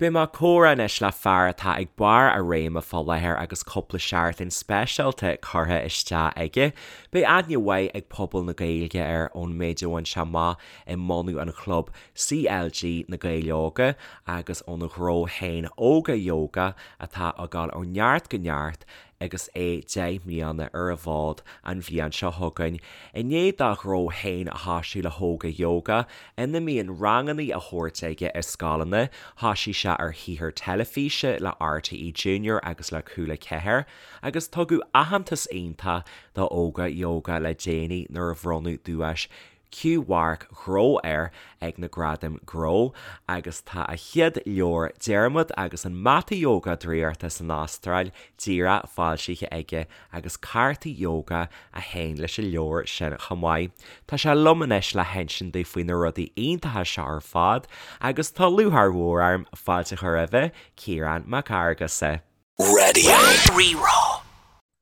Beidh mé ag comhrá anois le fear atá ag barr a réime fá láthair agus cúpla seachtain speisialta curtha isteach aige. Beidh aithne mhaith ag pobal na Gaeilge air ón méid a bhain sé amach i mbunú an chlub CLG Na Gaeil Óga agus óna ghnó féin Óga Yoga atá ag dul ó neart go neart agus é 10 mbliana ar an bhfód an bhliain seo chugainn, i ndiaidh dá ghnó féin a thoisiú le hÓga Yoga, ina mbíonn ranganna á thabhairt aige i scoileanna, thoisigh sé ar shaothar teilifíse le RTÉ Junior agus le Cúla 4, agus tugadh aitheantas iontach do Óga Yoga le déanaí nuair a bhronnadh duais Q-Mharc Gnó air ag na Gradaim Gnó agus tá a chéad leabhar Diarmuid agus an Mata Ióga Draíochta san Astráil díreach foilsithe aige agus cártaí ióga a théann leis an leabhar sin chomh maith. Tá sé liom anois le hinsint domh faoi na rudaí iontacha seo ar fad agus tá lúcháir mhór orm fáilte a chur roimhe, Ciarán Mac Fhearghusa. Raidió Rí-Rá.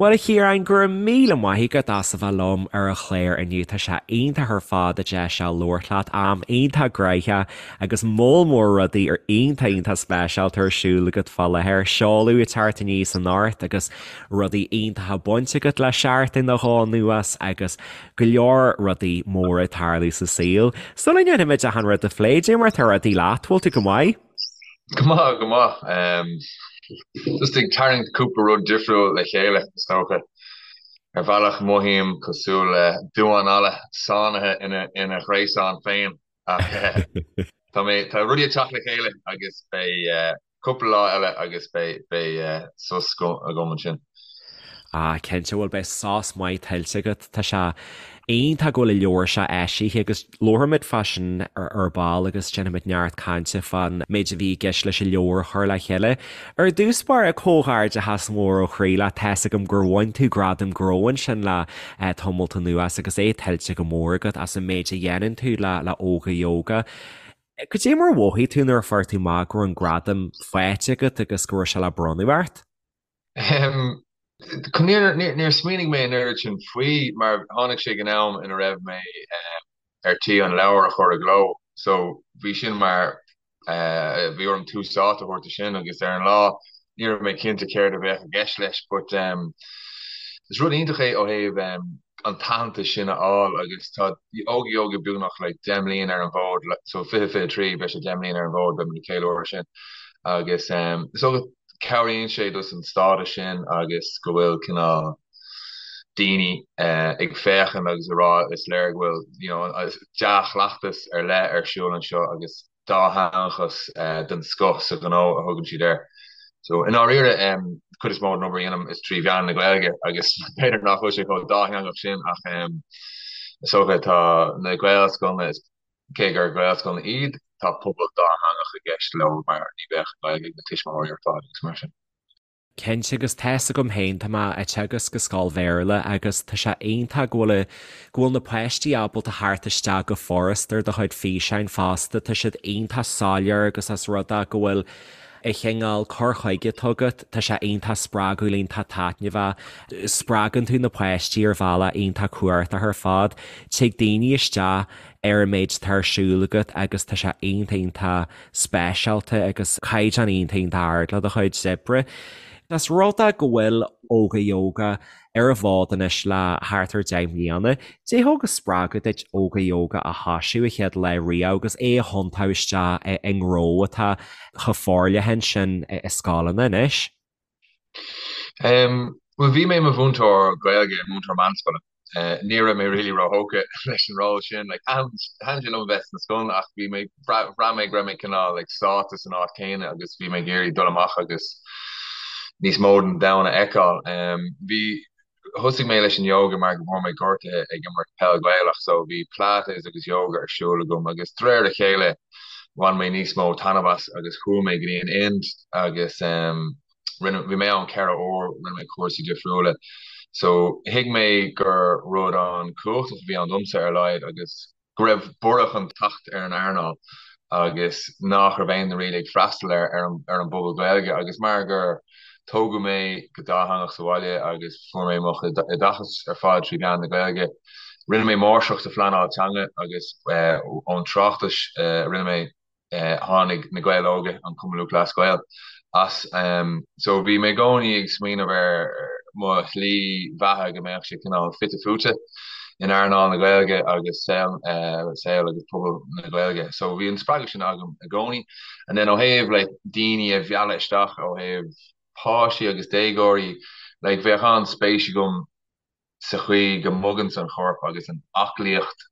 Bhuel, a Chiaráin, go raibh míle maith agat as a bheith liom ar an chlár inniu. Tá sé iontach ar fad an deis seo labhairt leat. Am iontach gnoitheach agus moll mór rudaí ar iontach iontach speisialta ar siúl agat fá láthair. Seoladh ag teacht aníos anocht agus rudaí iontacha bainte agat le seachtain nó dhó anuas agus go leor rudaí móra ag tarlú sa saol. Sula ndéanfaimid achan rud a phlé, cad é mar atá rudaí leat, bhfuil tú go maith? Go maith, go maith. Just ag tarraingt cúpla rud difriúil le chéile, is dócha. Ar bhealach mothaím cosúil le damhán alla sáinnithe ina ghréasán féin ach tá mé, tá rudaí ag teacht le chéile agus beidh cúpla lá eile agus beidh sos agam ansin. Ah, cinnte, bhuel beidh sos maith tuillte agat. Tá sé iontach go bhfuil an leabhar seo eisithe agus labharfaimid fá sin ar ball agus déanfaimid neart cainte fán méid a bhí i gceist leis an leabhar a chur le chéile. Ar dtús báire, comhghairdeachas mór ó chroí leat, tá's agam gur bhain tú gradam gnó ansin le tamalt anuas agus é tuillte go mór agat as an méid a dhéanann tú le Óga Yoga. Cad é mar a mhothaigh tú nuair a fuair tú amach go raibh an gradam faighte agat agus go raibh sé le bronnadh ort? Níor smaoinigh mé an oiread sin faoi mar tháinig sé ag an am ina raibh mé ar tí an leabhar a chur i gcló so bhí sin mar bhí orm tús áite a thabhairt do sin agus ar an lá ní raibh mé cinnte céard a bheadh i gceist leis but is rud iontach é ó thaobh an t-aitheantas sin a fháil agus tá Óga Yoga beagnach like 10 mbliain ar an bhfód so 2023 beidh sé 10 mbliain ar an bhfód beidh muid ag ceiliúradh sin agus so cabhraíonn sé dos an stádas sin agus go bhfuil cineál daoine ag féachaint agus ag rá is léir go bhfuil you know dea-chleachtas ar leith ar siúl anseo agus dátheangachas den scoth sa ghnó a thugann siad air. So i ndáiríre cuid is mó den obair a dhéanaim is trí mheán na Gaeilge agus b'fhéidir nach bhfuil sé chomh dátheangach sin ach is dócha tá na Gaelscoileanna is Cé gur Gaelscoileanna iad, tá pobal dátheangach i gceist leo mar ní bheadh an Ghaeilge ag na tuismitheoirí ar fad agus mar sin. Cinnte, agus tá's agam féin, tá mé ag teagasc i scoil Bhéarla agus tá sé iontach go bhfuil, go bhfuil na páistí ábalta theacht isteach go furast ar do chuid físeáin fosta, tá siad iontach soiléir agus as rud é go bhfuil an cineál cur chuige atá agat, tá sé iontach spreagúil, iontach taitneamhach, spreagann tú na páistí ar bhealach iontach cumhachtach ar fad, tig daoine isteach ar an méid atá ar siúl agat agus tá sé iontach iontach speisialta agus caighdeán iontach iontach ard le do chuid oibre. As rud é go bhfuil Óga Yoga ar an bhfód anois le thart ar 10 mbliana, cad é thug an spreagadh duit Óga Yoga a thoisiú a chéad lá riamh agus é a thiontú isteach i ngnó atá chomh forleathan sin i scoileanna anois? Bhuel, bhí mé i mo mhúinteoir Gaeilge, múinteoir meánscoile. Ní raibh mé really róthógtha leis an ról sin. Like, thaitin sé liom a bheith sna scoileanna ach bhí mé, bhraith mé go raibh mé cineál like sáite san áit chéanna agus bhí mé ag iarraidh dul amach agus níos mó den domhan a fheiceáil. Bhí, Thosaigh mé leis an yoga mar go bhfuair mé gortaithe ag imirt peil Ghaelach so bhí Pilates agus yoga ar siúl agam agus de réir a chéile bhain mé níos mó taitneamh as agus chuaigh mé go dtí an Ind agus rinne, bhí mé ann 4 uair, rinne mé cúrsaí difriúla so thuig mé gur rud an-chumhachtach a bhí ann domsa ar a laghad agus go raibh borradh chun teacht ar an earnáil agus nach raibh aon duine really ag freastal ar ar an bpobal Gaeilge agus mar gur tógadh mé go dátheangach sa bhaile agus fuair mé mo chuid oideachas ar fad trí mheán na Gaeilge, rinne mé máistreacht sa phleanáil teanga agus ón tráchtas a rinne mé. Tháinig Na Gaeil Óga, an Cumann Lúthchleas Gael, as. So bhí mé i gcónaí ag smaoineamh ar mo shlí bheatha go mbeadh sé cineál fite fuaite in earnáil na Gaeilge agus saol saol agus pobal na Gaeilge. So bhí an spreagadh sin agam i gcónaí. And then ó thaobh like daoine a mhealladh isteach ó thaobh páistí agus déagóirí, like bheadh an-spéis agam sa chaoi go mboganns an chorp agus an aclaíocht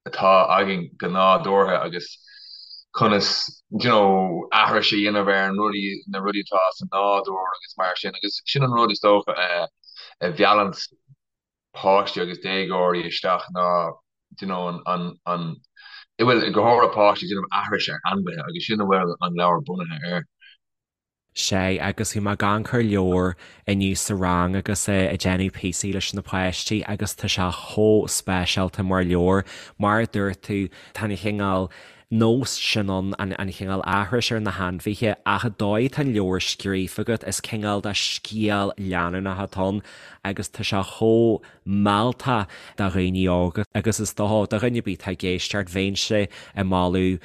atá againn go nádúrtha agus conas you know aithris a dhéanamh ar an rudaí na rudaí atá sa nádúr agus mar sin agus sin an rud is dócha a a mheallanns páistí agus déagóirí isteach ná you know an an an bhuel go háirithe páistí ag déanamh aithris ar ainmhithe agus sin a bhfuil an leabhar bunaithe air. Sea, agus bhí mé ag amharc ar an leabhar inniu sa rang agus ag déanamh píosaí leis na páistí agus tá sé chomh speisialta mar leabhar. Mar a dúirt tú, tá an chineál nós sin ann, an chineál aithris ar na hainmhithe, ach an dóigh atá an leabhar scríofa agat, is cineál de scéal leanúnach atá ann agus tá sé chomh mealltach do dhaoine óga agus is dócha do dhuine ar bith atá ag éisteacht, bheinnse ag moladh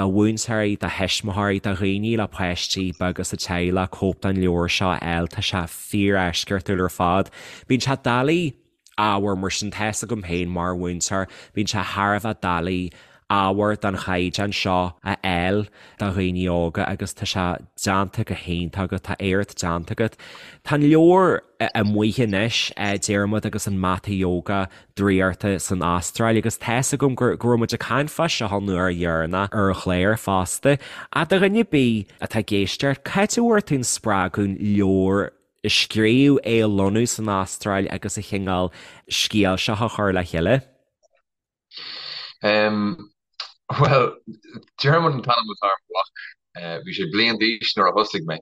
do mhúinteoirí, do thuismitheoirí, do dhaoine le páistí beaga sa teaghlach cóip den leabhar seo a fháil, tá sé fíor-eisceachtúil ar fad. Bíonn sé doiligh ábhar mar sin, tá fhios agam féin mar mhúinteoir, bíonn sé thar a bheith doiligh ábhar den chaighdeán seo a fháil do dhaoine óga agus tá sé déanta go hiontach agat, tá éacht déanta agat. Tá an leabhar amuigh anois, Diarmuid agus an Mata Ióga Draíochta san Astráil agus tá fhios agam go raibh muid ag caint fá seo an uair dheireanach ar an chlár fosta. Ach do dhuine ar bith atá ag éisteacht, cá háit a bhfuair tú an spreagadh an leabhar a scríobh, é a lonnú san Astráil agus an chineál scéal seo a chur le chéile? Bhuel, Diarmuid an t-ainm atá ar mo mhac. Bhí sé bliain d'aois nuair a thosaigh mé.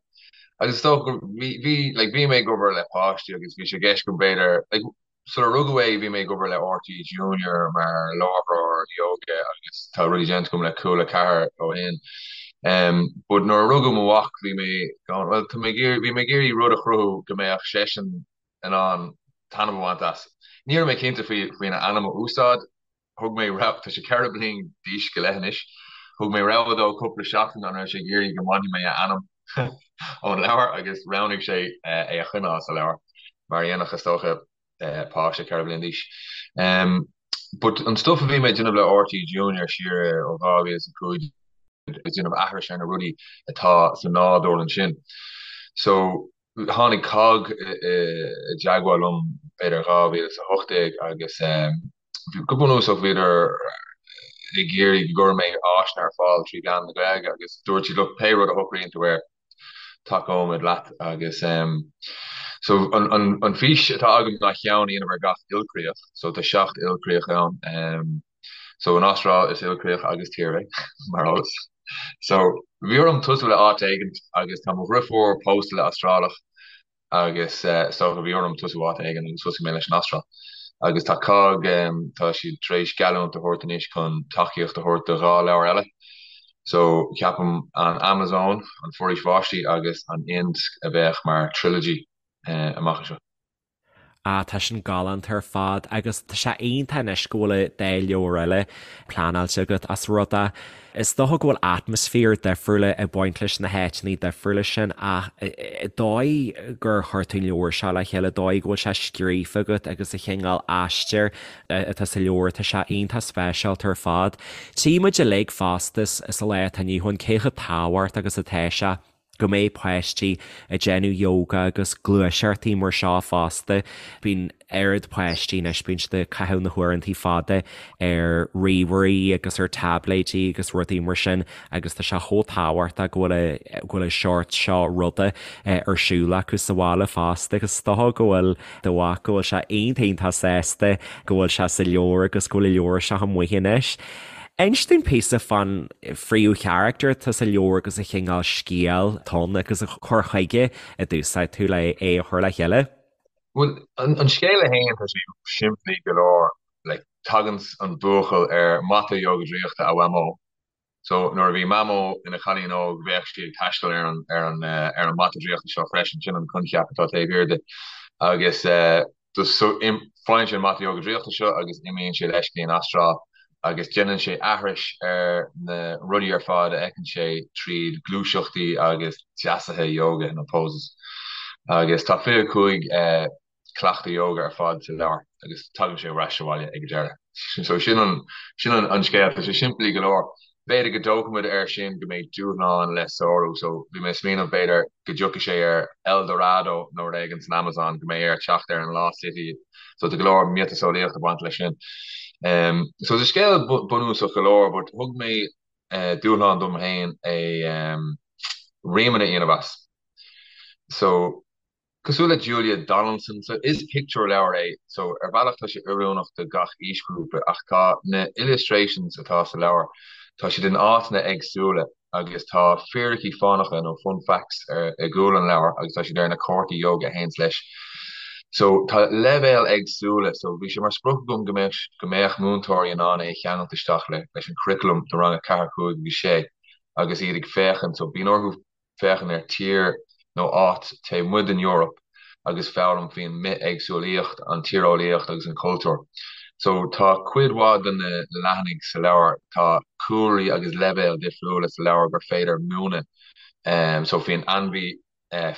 Agus is dócha go bhí, bhí, like, bhí mé ag obair le páistí agus bhí sé i gceist agam b'fhéidir, like, sular rugadh é bhí mé ag obair le RTÉ Junior mar láithreoir ióga agus tá rudaí déanta agam le Cúla 4 ó shin. But nuair a rugadh mo mhac bhí mé going, well, tá mé ag iarraidh, bhí mé ag iarraidh rud a chruthú go mbeadh seisean in ann taitneamh a bhaint as. Ní raibh mé cinnte faoi faoina ainm a úsáid. Thug mé rogha, tá sé 4 bliain d'aois go leith anois, thug mé rogha dó cúpla seachtain an raibh sé ag iarraidh go mbainfidh mé a ainm ón leabhar agus roghnaigh sé é a choinneáil sa leabhar, mar a dhéanfadh is dócha páiste 4 bliain d'aois. But an stuff a bhí mé ag déanamh le RTÉ Junior siar ó 2005 ag déanamh aithris ar na rudaí atá sa nádúr ansin. So Tháinig cogg i dteagmháil liom b'fhéidir 2018 agus go bunúsach bhíodar ag iarraidh go gcuirfeadh mé áiseanna ar fáil trí mheán na Gaeilge agus dúirt siad look pé rud a shocraíonn tú air tacóimid leat agus so an fís atá agam ná ceann a dhéanamh ar gach ilchríoch so tá 7 ilchríoch ann. So an Astráil is ilchríoch agus tír é, mar eolas. So bhí orm tosú le áit éigint agus tá mo dhriofúr pósta le Astrálach agus is dócha bhí orm tosú áit éigin agus thosaigh mé leis an Astráil. Agus tá cogg, tá siad tar éis geallúint a thabhairt anois chun tacaíocht a thabhairt do dhá leabhar eile. So ceapaim an Amazon, an Foraois Bháistí agus an Ind a bheadh mar trilogy amach anseo. Ah, tá sin galánta ar fad agus tá sé iontach anois go bhfuil an dá leabhar eile pleanáilte agat as rud é. Is dócha go bhfuil atmaisféar difriúla ag baint leis na háiteanna difriúla sin ach an dóigh gur chuir tú an leabhar seo le chéile, an dóigh go bhfuil sé scríofa agat agus an chineál aistir atá sa leabhar, tá sé iontach speisialta ar fad. Tchí muid uilig fosta sa lá atá inniu ann cé chomh tábhachtach agus atá sé. go mbeidh páistí ag déanamh yoga agus gluaiseachtaí mar seo fosta. Bíonn oiread páistí anois, bíonn siad ag caitheamh na huaireantaí fada ar ríomhairí agus ar táibléidí agus rudaí mar sin agus tá sé chomh tábhachtach go bhfuil go bhfuil an seort seo ruda ar siúl acu sa bhaile fosta agus is dócha go bhfuil do mhac go bhfuil sé iontach iontach sásta go bhfuil sé sa leabhar agus go bhfuil an leabhar seo amuigh anois. Inis dúinn píosa fán phríomhcharachtar atá sa leabhar agus an chineál scéil atá ann agus an cur chuige a d'úsáid tú le é a chur le chéile. Bhuel, an scéal é féin, tá sé simplí go leor. Like, tagann an buachaill ar mata ióga draíochta a mhamó. So, nuair a bhí Mamó ina chailín óg, bheadh sí ag taisteal ar an, ar an, ar an mata draíochta seo freisin. Sin an coincheap atá taobh thiar de. Agus, so, faigheann sé an mata ióga draíochta seo agus imíonn sé leis go dtí an Astráil. Agus déanann sé aithris ar na rudaí ar fad a fheiceann sé tríd gluaiseachtaí agus deasuithe yoga nó poses. Agus tá 25 cleachtadh yoga ar fad sa leabhar agus tagann sé ar ais abhaile ag an deireadh. So sin an sin an scéal. Tá sé simplí go leor. B'fhéidir go dtógfaidh muid air sin go mbeidh dúshlán le sárú. So bhí mé ag smaoineamh b'fhéidir go dtiocfaidh sé ar El Dorado nó rud éigin san Amazon, go mbeidh air teacht ar an Lost City. So tá go leor miotaseolaíocht ag baint leis sin. So tá scéal bunúsach go leor but thug mé dúshlán dom féin é rímeanna a dhéanamh as. So Cosúil le Julia Donaldson, so is pictiúrleabhar é, so ar bhealach tá sé oiriúnach do gach aoisghrúpa ach tá na illustrations atá sa leabhar, tá siad in áiteanna éagsúla agus tá fíricí fánacha nó fun facts ar i gcúl an leabhair agus tá siad ar na cártaí yoga a théanns leis. So tá leibhéil éagsúla, so bhí sé mar sprioc agam go mbeadh go mbeadh múinteoirí in ann é a cheangailt isteach le leis an curriculum do rang 4, 5 agus 6 agus iad ag féachaint, so bíonn orthu féachaint ar tír nó áit taobh amuigh den Eoraip agus foghlaim faoin mbithéagsúlaíocht, an tíreolaíocht agus an cultúr. So tá cuid mhaith de na leathanaigh sa leabhar, tá cúlraí agus leibhéil difriúla sa leabhar gur féidir múineadh so faoin ainmhí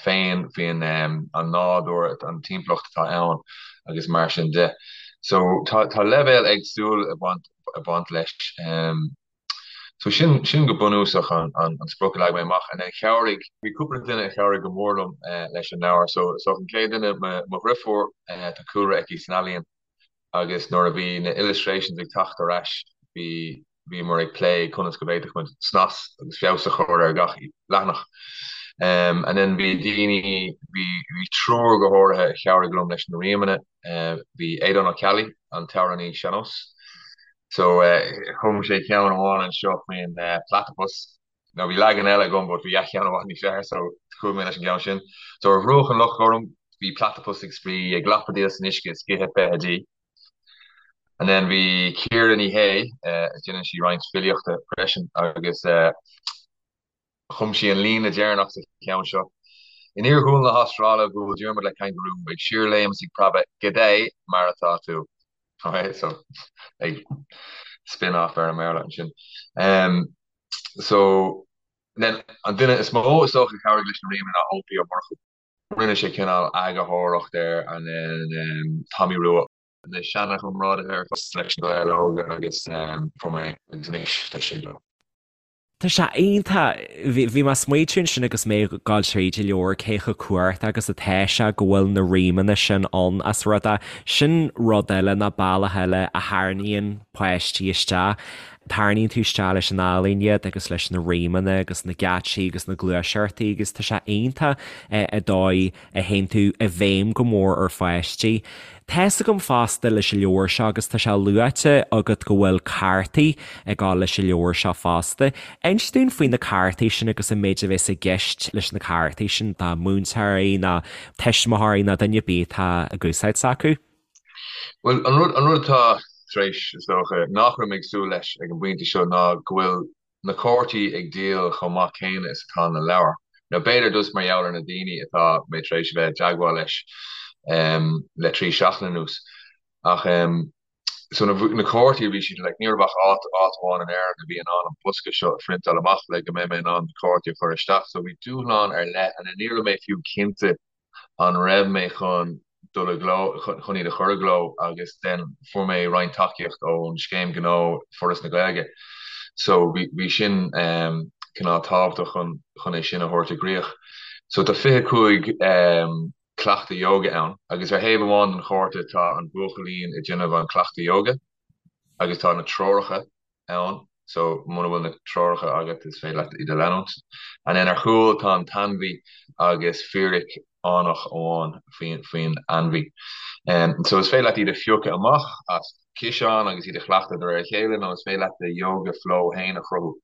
féin, faoin an nádúr, an timpeallacht atá ann agus mar sin de. So tá tá leibhéil éagsúil ag baint ag baint leis. So sin, sin go bunúsach an, an, an sprioc a leag mé amach. And then chabhraigh, bhí cúpla duine a chabhraigh go mór liom leis an leabhar. So, so an chéad duine, mo, mo dhriofúr, tá cúlra aici san ealaíon agus nuair a bhí na illustrations ag teacht ar ais, bhí, bhíomar ag plé conas go bhféadfadh muid snas agus feabhas a chur ar gach leathanach. And then bhí daoine, bhí, bhí triúr go háirithe a chabhraigh liom leis na rímeanna. Bhí Aodán Ó Ceallaigh, an t-amhránaí sean-nós, So chum sé ceann amháin anseo faoin platypus. Now bhí leagan eile agam but bhí a cheann i bhfad níos fearr so chuaigh mé leis an gceann sin. So ar bhruach an Loch Gorm bhí platypus ag spraoi, ag lapadaíl san uisce is ag ithe feithidí. And then bhí Ciara Ní Shé, déanann sí roinnt filíochta freisin agus Chum sí an líne deireanach sa cheann seo. In iarghúil na hAstráile, bhuail Diarmuid le cangarú, ag síorléim is ag preabadh, G'day, mar atá tú? Ok, so ag spin off ar an mBéarla ansin. Um, so, then, an duine is mó is dócha a chabhraigh leis na rímeanna ná Eoin P. Ó Murchú. Rinne sé cineál eagarthóireacht air and then um, Tommy Rua. Na seana-chomrádaithe ar fad leis na Gaeil Óga agus um, fuair mé agus anois tá sé leo. Tá sé iontach. Bhí mé ag smaoitiú ansin agus mé ag gabháil tríd an leabhar cé chomh cumhachtach agus atá sé go bhfuil na rímeanna sin ann as rud é. Sin rud eile nó bealach eile a tharraingíonn páistí isteach. Tarraingíonn tú isteach leis an ealaín iad agus leis na rímeanna agus na geáitsí agus na gluaiseachtaí agus tá sé iontach an dóigh a théann tú i bhfeidhm go mór ar pháistí. Tá's agam fosta leis an leabhar seo agus tá sé luaite agat go bhfuil cártaí ag dul leis an leabhar seo fosta. Inis dúinn faoi na cártaí sin agus an méid a bheas i gceist leis na cártaí sin do mhúinteoirí nó tuismitheoirí nó duine ar bith atá ag úsáid s'acu. Bhuel, an rud, an rud atá tar éis, is dócha, nach raibh mé ag súil leis ag an bpointe seo ná go bhfuil na cártaí ag díol chomh maith céanna is atá na leabhair. Nó b'fhéidir just mar gheall ar na daoine atá mé tar éis a bheith i dteagmháil leis le 3 seachtain anuas. Ach so na na cártaí bhí siad like ní raibh ach áit áit amháin in Éirinn a bhí in ann an bosca seo a phriontáil amach le go mbeidh mé in ann na cártaí a chur isteach. So bhí dúshlán ar leith and ní raibh mé fiú cinnte an raibh mé chun dul i gcló, chun iad a chur i gcló agus then fuair mé roinnt tacaíocht ón Scéim Gnó Foras na Gaeilge so bhí bhí sin cineál tábhachtach chun chun é sin a thabhairt i gcrích. So tá 25 cleachtadh yoga ann agus ar thaobh amháin den chárta tá an buachaillín ag déanamh an cleachtadh yoga agus tá na treoracha ann so muna bhfuil na treoracha agat is féidir leat iad a leanúint. And then ar chúl tá an t-ainmhí agus fíric fhánach amháin faoin faoin ainmhí. So is féidir leat iad a phiocadh amach as ciseán agus iad a chleachtadh de réir a chéile nó is féidir leat do yoga flow féin a chruthú.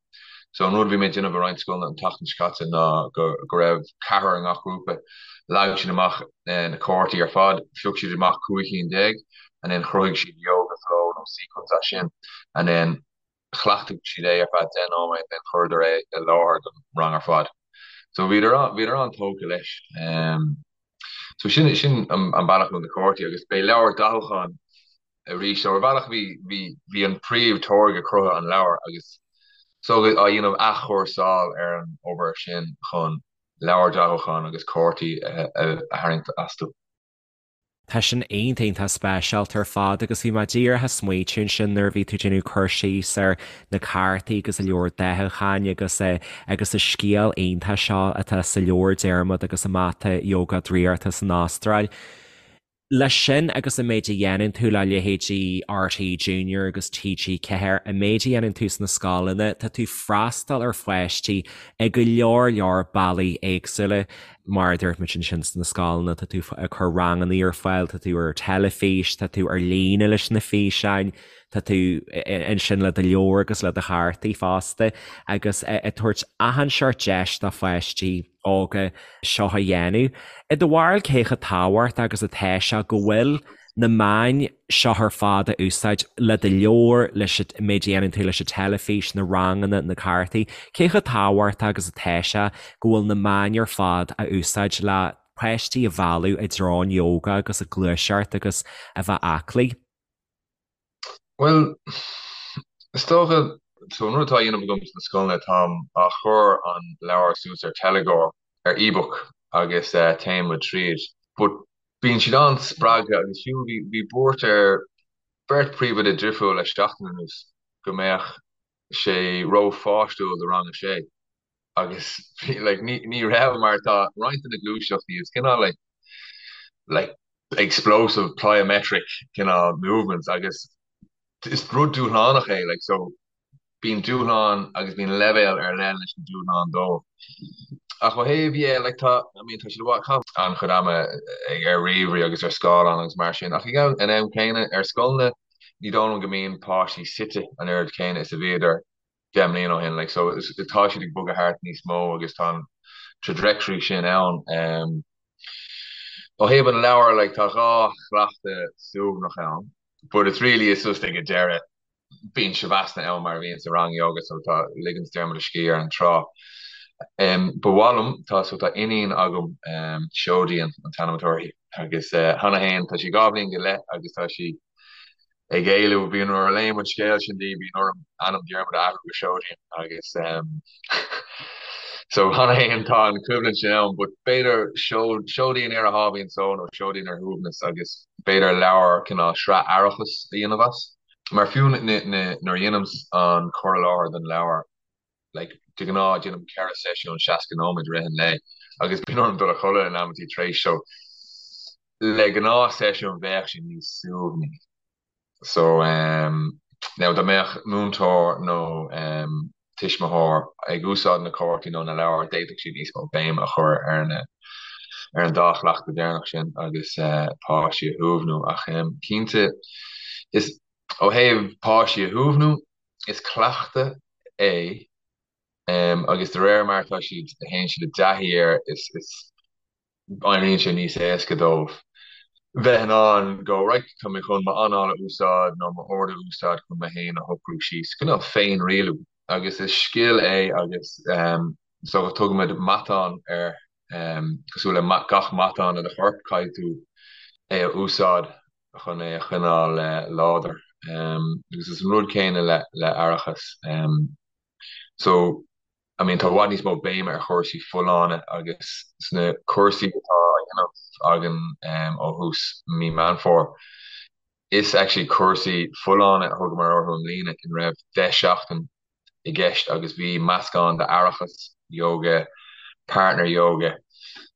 So an rud a bhí mé ag déanamh i roinnt scoileanna an tseachtain seo caite ná go go raibh ceathrar i ngach grúpa, leag siad amach na cártaí ar fad, phioc siad amach 15 cinn and then chruthaigh siad yoga flow nó sequence as sin and then chleachtaigh siad é ar feadh 10 nóiméad then chuireadar é i láthair don rang ar fad. So bhíodar bhíodar an-tógtha leis. Um, so sin sin an, an bealach na cártaí agus beidh leabhar dathúcháin. arís. So ar bhealach bhí bhí bhí an príomh táirge cruthaithe an leabhar agus so á dhéanamh athchúrsáil ar an obair sin chun leabhar dathúcháin agus cártaí a tharraingt astu. Tá sin iontach iontach speisialta ar fad agus bhí mé díreach ag smaoitiú ansin nuair a bhí tú ag déanamh cur síos ar na cártaí agus an leabhar dathúcháin agus agus an scéal iontach seo atá sa leabhar Diarmuid agus an Mata Ióga Draíochta san Astráil. Leis sin agus an méid a dhéanann tú le leithéidí RTÉ Junior agus TG4, an méid a dhéanann tú sna scoileanna, tá tú ag freastal ar pháistí i go leor leor bealaí éagsúla. Mar a dúirt muid ansin sna scoileanna, tá tú ag cur ranganna ar fáil, tá tú ar teilifís, tá tú ar líne leis na físeáin, tá tú ansin le do leabhar agus le do chártaí fosta agus ag tabhairt achan seort deis do pháistí. óga seo a dhéanamh. I do bharúil cé chomh tábhachtach agus atá sé go bhfuil na meáin seo ar fad a úsáid le do leabhar, leis an méid a dhéanann tú leis an teilifís, na ranganna, na cártaí, cé chomh tábhachtach agus atá sé go bhfuil na meáin ar fad a úsáid le páistí a mhealladh i dtreo an ióga agus an ghluaiseacht agus a bheith aclaí? Bhuel, is dócha, so an rud atá á dhéanamh agam sna scoileanna, táim á chur an leabhar suas ar teilgeoir, ar ebook agus téann muid tríd. But bíonn siad an-spreagtha agus fiú bhí bhí buairt ar beirt príomhoide difriúil le seachtain anuas go mbeadh sé ró-pháistiúil do rang a sé. agus like ní ní raibh mar tá roinnt de na gluaiseachtaí is cineál like like explosive plyometric cineál movements agus is rud dúshlánach é like so bíonn dúshlán agus bíonn leibhéal ar leith leis na dúshláin dóibh. Ach ó thaobh yeah like tá I mean tá siad ag caitheamh an-chuid ama ag ar ríomhairí agus ar scáileán agus mar sin ach ag an am céanna ar scoileanna ní dóigh liom go mbíonn páistí suite an oiread céanna is a bhíodar 10 mbliana ó shin like so tá siad ag bogadh thart níos mó agus tá an trajectory sin ann. Um, ó thaobh an leabhair like tá dhá chleachtadh suaimhneach ann but it's really it's just ag an deireadh bíonn shavasana ann mar a bhíonn sa rang yoga so tá ligeann Diarmuid a scíth ar an trá. Um, ba mhaith liom tá so tá iníon agam um, Seoidín an t-ainm atá uirthi agus uh, cheana féin tá sí dhá bhliain go leith agus tá sí ag éileamh, bíonn nuair a léim an scéal sin di, bíonn orm ainm Diarmuid a athrú go Seoidín agus so cheana féin tá an choimhlint sin ann but b'fhéidir Seoidín ar a sháimhín só nó Seoidín ar shuaimhneas agus b'fhéidir leabhar cineál sraith aireachais a dhéanamh as. Mar fiú nuair a dhéanaim an cur i láthair don leabhar like de ghnáth déanaim 4 seisiún 60 nóiméad i rith an lae agus bíonn orm dul a chodladh in amantaí tar éis so le gnáth seisiún bheadh sé níos suaimhní so um now dá mbeadh múinteoir nó um tuismitheoir ag úsáid na cártaí nó na leabhar d'fhéadfadh siad níos mó béime a chur ar na ar an dá chleachtadh deireanach sin agus uh, páistí a shuaimhniú ach um, cinnte is ó thaobh páistí a shuaimhniú is cleachtadh é agus de réir mar atá siad, a théann siad i dtaithí air, is éiríonn sé níos éasca dóibh bheith in ann go, right, tá mé chun m'anáil a úsáid nó m'aird a úsáid chun mé féin a shocrú síos, cineál féinrialú. Agus is scil é agus so tugaimid matán air, cosúil le gach matán i do chorp, caithfidh tú é a úsáid chun é a choinneáil láidir. Agus is an rud céanna le le aireachas. So, I mean, tá i bhfad níos mó béime ar chúrsaí folláine agus sna cúrsaí atá á dhéanamh againn ó thús mí Meán Fómhair, is actually cúrsaí folláine a thugamar orthu i mbliana ina raibh 10 seachtain i gceist agus bhí meascán d'aireachas, yoga, partner yoga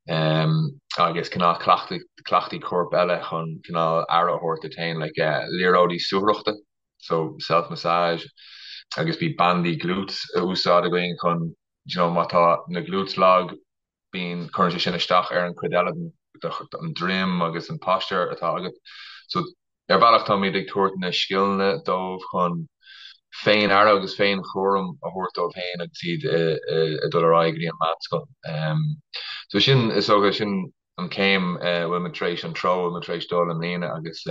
agus cineál cleachtaí coirp eile chun cineál aire a thabhairt duit féin, like liathróidí suathaireachta, so self massage agus bhí bandaí glutes a úsáid againn chun, you know, má tá na glutes lag, bíonn, cuireann sé sin isteach ar an chuid eile den an droim agus an posture atá agat. So ar bhealach táimid ag tabhairt na scileanna dóibh chun féin-aire agus féin-chúram a thabhairt dóibh féin agus iad ag dul ar aghaidh go dtí an meánscoil. So sin, is dócha, sin an chéim a bhfuil muid tar éis, an treo a bhfuil muid tar éis dul i mbliana agus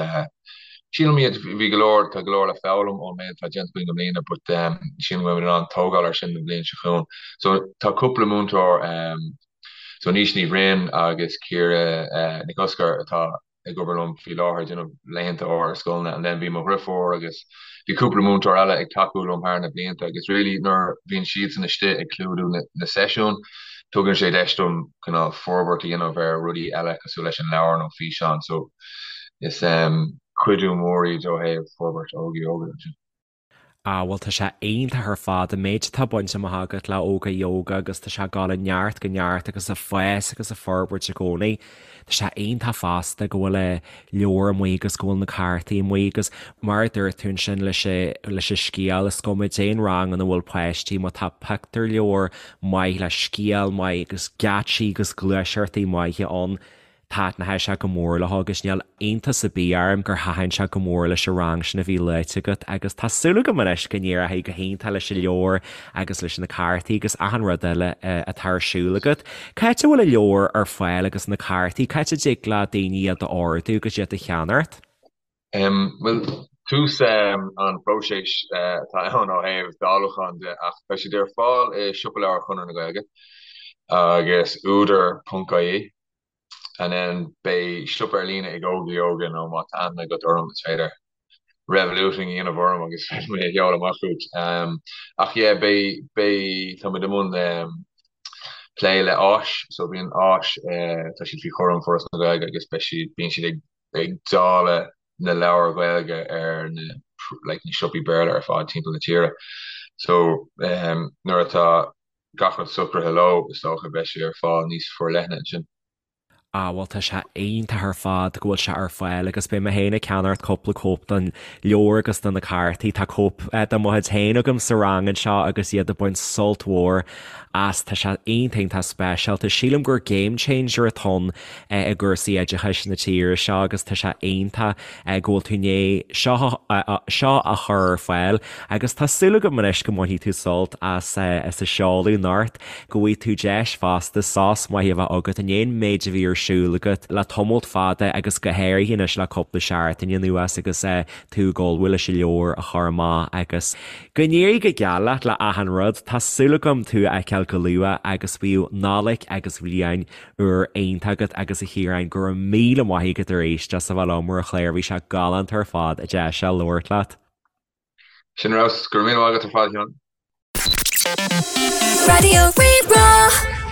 sílim iad, bhí go leor, tá go leor le foghlaim ón méid atá déanta againn i mbliana but sílim go mbeimid in ann tógáil ar sin an bhliain seo chugainn. So tá cúpla múinteoir, so Naoise Ní Bhroin agus Ciara Nic Oscair atá. ag obair liom faoi láthair ag déanamh laethanta áirithe i scoileanna and then bhí mo dhriofúr agus bhí cúpla múinteoir eile ag tacú liom thar na blianta agus really nuair bhíonn siadsan istigh ag clúdú na, na seisiúin tugann sé deis dom cineál forbairt a dhéanamh ar rudaí eile cosúil leis an leabhar nó físeán so is um, cuidiú mór iad ó thaobh forbairt Óga Yoga ansin. Ah bhuel tá sé iontach ar fad an méid atá bainte amach agat le Óga Yoga agus tá sé ag dul ó neart go neart agus ag fás agus ag forbairt i gcónaí. Tá sé iontach fosta go bhfuil an leabhar amuigh agus go bhfuil na cártaí amuigh agus mar a dúirt tú ansin leis leis an scéal is cuma cén rang ina bhfuil páistí má tá pictiúrleabhar maith le scéal maith agus geáitsí agus gluaiseachtaí maithe ann Taitneoidh sé go mór leo agus níl iontas ar bith orm gur thaitin sé go mór leis an rang sin a bhí luaite agat agus tá súil agam anois go n-éireoidh go hiontach leis an leabhar agus leis na cártaí agus achan rud eile atá ar siúl agat. Cá háit a bhfuil an leabhar ar fáil agus na cártaí? Cá háit a dtig le daoine iad a ordú agus iad a cheannacht? Bhuel, tús an phróisis atá ann ó thaobh dáiliúcháin de ach beidh siad ar fáil i Siopa Leabhar Chonradh na Gaeilge agus údar.ie. And then beidh siopa ar líne ag Óga Yoga nó má tá aithne agat orm is féidir revoluting a dhéanamh orm agus féadfaidh mé a sheoladh amach chugat. Ach yeah beidh beidh tá muid i mbun plé le Áis so bíonn Áis tá siad faoi chúram Foras na Gaeilge agus beidh siad bíonn siad ag ag dáileadh na leabhair Ghaeilge ar na like na siopaí Béarla ar fad timpeall na tíre. So nuair atá gach rud socraithe leo, is dócha, beidh sé ar fáil níos forleithne ansin. Ah bhuel tá sé iontach ar fad go bhfuil sé ar fáil agus beidh mé féin ag ceannacht cúpla cóip den leabhar agus de na cártaí. Tá cóip de mo chuid féin agam sa rang anseo agus iad ag baint sult mhór as. Tá sé iontach iontach speisialta. Sílim gur game changer atá ann i gcúrsaí oideachais na tíre seo agus tá sé iontach go bhfuil tú i ndiaidh seo seo a chur ar fáil agus tá súil agam anois go mbainfidh tú sult as as a seoladh anocht, go bhfaighidh tú deis fosta sos maith a bheith agat i ndiaidh an méid a bhí ar siúl agat le tamalt fada agus go háirithe anois le cúpla seachtain anuas agus tú ag ullmhú leis an leabhar a chur amach agus go n-éirí go geal leat le achan rud. Tá súil agam tú a fheiceáil go luath agus bíodh Nollaig agus Bliain Úr iontach agat agus a Chiaráin, go raibh míle maith agat arís as a bheith liom ar an chlár, bhí sé galánta ar fad an deis seo labhairt leat. Sin ar fheabhas, go raibh míle maith agat ar fad, a Sheáin. Raidió Rí-Rá.